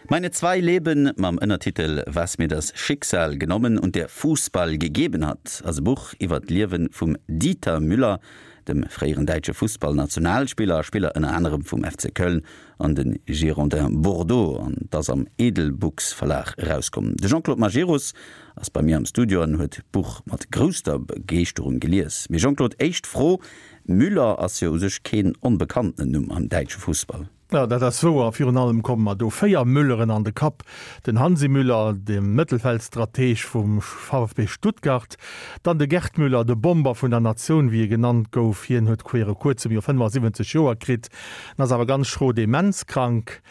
Meine zwei Leben mam Ënnertitel Was mir das Schicksal genommen und der Fußball gegeben hat ass e Buch iwwer d'Liewe vum Dieter Müller, dem fréieren däitsche Fussballnationalspiller a Spiller ënner anerem vum FC Köln an de Girondins Bordeaux an et ass am Edelbooks Verlag erauskomm. De Jean-Claude Majerus ass bei mir am Studio an huet d'Buch mat grousster Begeeschterung gelies. Mee Jean-Claude, éischt Fro, Müller ass jo u sech keen onbekanntenen Numm am däitsche Fussball. Jo, dat ass wouer. Virun allem komme mer do 4 Mülleren an de Kapp, den Hansi Müller, de Mëttelfeldstrateg vum VfB Stuttgart, dann de Gerd Müller, de Bomber vun der Natioun, wéi e genannt gouf. Hien huet viru kuerzem jo 75 Joer kritt, en ass awer ganz schro demenzkrank.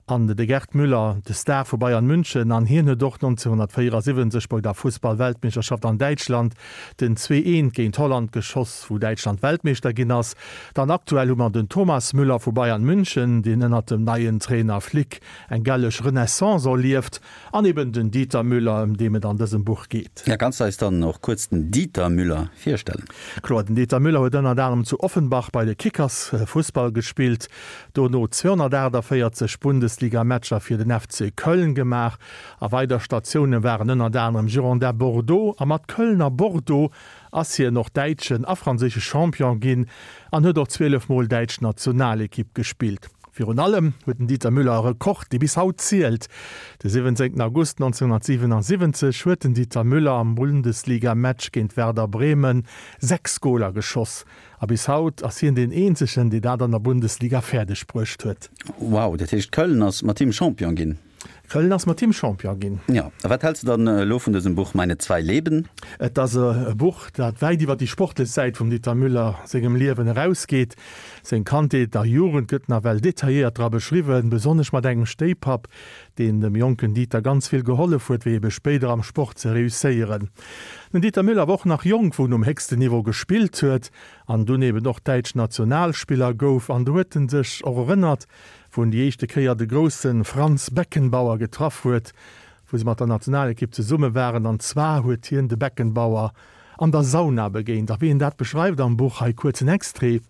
An de Gerd Müller, de Star vu Bayern München, an hien huet och 1974 bei der Fussball-Weltmeeschterschaft an Däitschland den 2, 1 géint Holland geschoss, wou Däitschland Weltmeeschter ginn ass. Dann aktuell hu mer den Thomas Müller vu Bayern München, deen ënnert dem neien Trainer Flick eng gelleg Renaissance erlieft, an eben den Dieter Müller, ëm deem et an dësem Buch geet. Ja, kanns de eis dann och kuerz den Dieter Müller virstellen? Kloer, den Dieter Müller huet ënnert anerem zu Offenbach bei de Kickers Fussball gespillt, dono 248 Bundesliga-Matcher fir den FC Köln gemaach a weider Statioune waren ënnert anerem Girondins Bordeaux a mat Köln a Bordeaux ass hien och däitschen a franséische Champion ginn an huet och 12 Mol däitsch Nationalekipp gespillt. Virun allem huet den Dieter Müller e Rekord, dee bis haut zielt. De 17 August 1977 huet den Dieter Müller am Bundesliga-Match géint Werder Bremen 6 Goler geschoss. A bis haut ass hien deen eenzegen, dee dat an der Bundesliga fäerdeg bruecht huet. Wow, dat heescht Köln ass mat him Champion ginn? Köln ass mat him Champion ginn. Jo, a wat häls de dann elo vun dësem Buch Meine zwei Leben? Et ass e Buch, dat wäit iwwer déi sportlech Säit vum Dieter Müller sengem Liewen erausgeet. Seng Kandheet a Jugend gëtt nawell detailléiert dra beschriwwen, besonnesch mat engem Stéipapp, deen dem jonken Dieter ganz vill gehollef huet, fir ebe spéider am Sport ze reusséieren. Den Dieter Müller war och nach jonk, wou en um héchsten Niveau gespillt huet an dunn eben och däitsch Nationalspiller gouf. An do huet en sech och erënnert, wou en déi éischte Kéier de grousse Franz Beckenbauer getraff huet, wou se mat der Nationalekipp zesumme waren. An zwar huet hien de Beckenbauer an der Sauna begéint. A wéi en dat beschreift am Buch, hei kuerz en Extrait,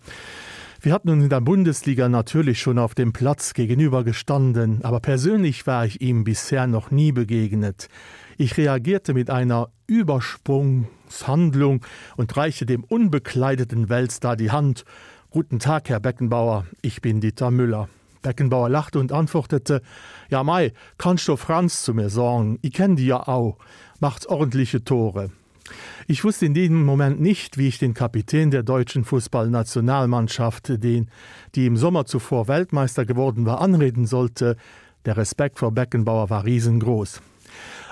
Wir hatten uns in der Bundesliga natürlich schon auf dem Platz gegenüber gestanden, aber persönlich war ich ihm bisher noch nie begegnet. Ich reagierte mit einer Übersprungshandlung und reichte dem unbekleideten Weltstar die Hand. Guten Tag, Herr Beckenbauer, ich bin Dieter Müller. Beckenbauer lachte und antwortete: Ja mei, kannst du Franz zu mir sorgen, ich kenn die ja au, macht ordentliche Tore. Ich wusste in diesem Moment nicht, wie ich den Kapitän der deutschen Fußballnationalmannschaft, den, die im Sommer zuvor Weltmeister geworden war, anreden sollte. Der Respekt vor Beckenbauer war riesengroß.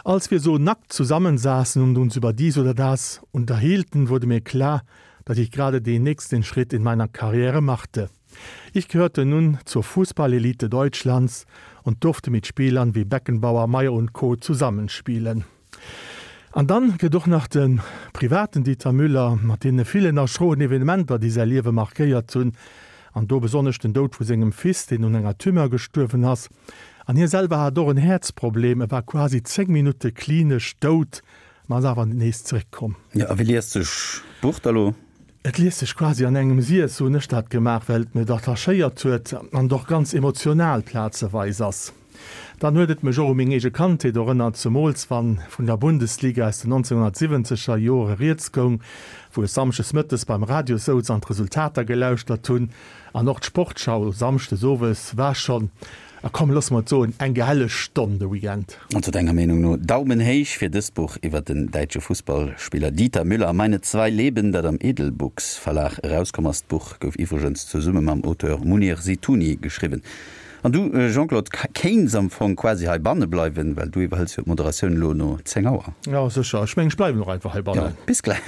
Als wir so nackt zusammensaßen und uns über dies oder das unterhielten, wurde mir klar, dass ich gerade den nächsten Schritt in meiner Karriere machte. Ich gehörte nun zur Fußballelite Deutschlands und durfte mit Spielern wie Beckenbauer, Meier und Co. Zusammenspielen. An dann gëtt och nach de privaten Dieter Müller mat deene villen a schroen Evenementer, déi säi Liewe markéiert hunn, an do besonnesch den Doud vu sengem Fils, deen un enger Tumeur gestuerwen ass. An hie selwer hat och en Häerzproblem, e war quasi 10 Minutte klinesch dout, ma ass awer nees zeréckkomm. Jo, a wéi liest sech d'Buch da lo? Et liest sech quasi an engem Siess, sou hunn ech dat gemaach, well et mech attachéiert huet an et och ganz emotional plazeweis ass. Dann huet et mech och u meng eege Kandheet erënnert, zemools wann vun der Bundesliga aus den 1970 er Jore rieds goung, wou ech samschdes mëttes beim Radio souz an d'Resultater gelauschtert hunn. An och d'Sportschau samschdes owes war schonn, a komm loosse mer et soen, eng gehelleg Stonn de Weekend. Also denger Meenung no Daumen héich fir dëst Buch iwwer den däitsche Fussballspiller Dieter Müller, Meine zwei Leben, dat am Edelbooks Verlag erauskomm ass. D'Buch gouf iwwregens zesumme mam Auteur Mounir Zitouni geschriwwen. An du Jean-Claude, kéints am Fong quasi heibanne bleiwen, well du iwwerhëls jo d'Moderatioun elo no 10 Auer. Jo sécher, ech mengen ech bleiwen och einfach heibannen. Jo, bis gläich.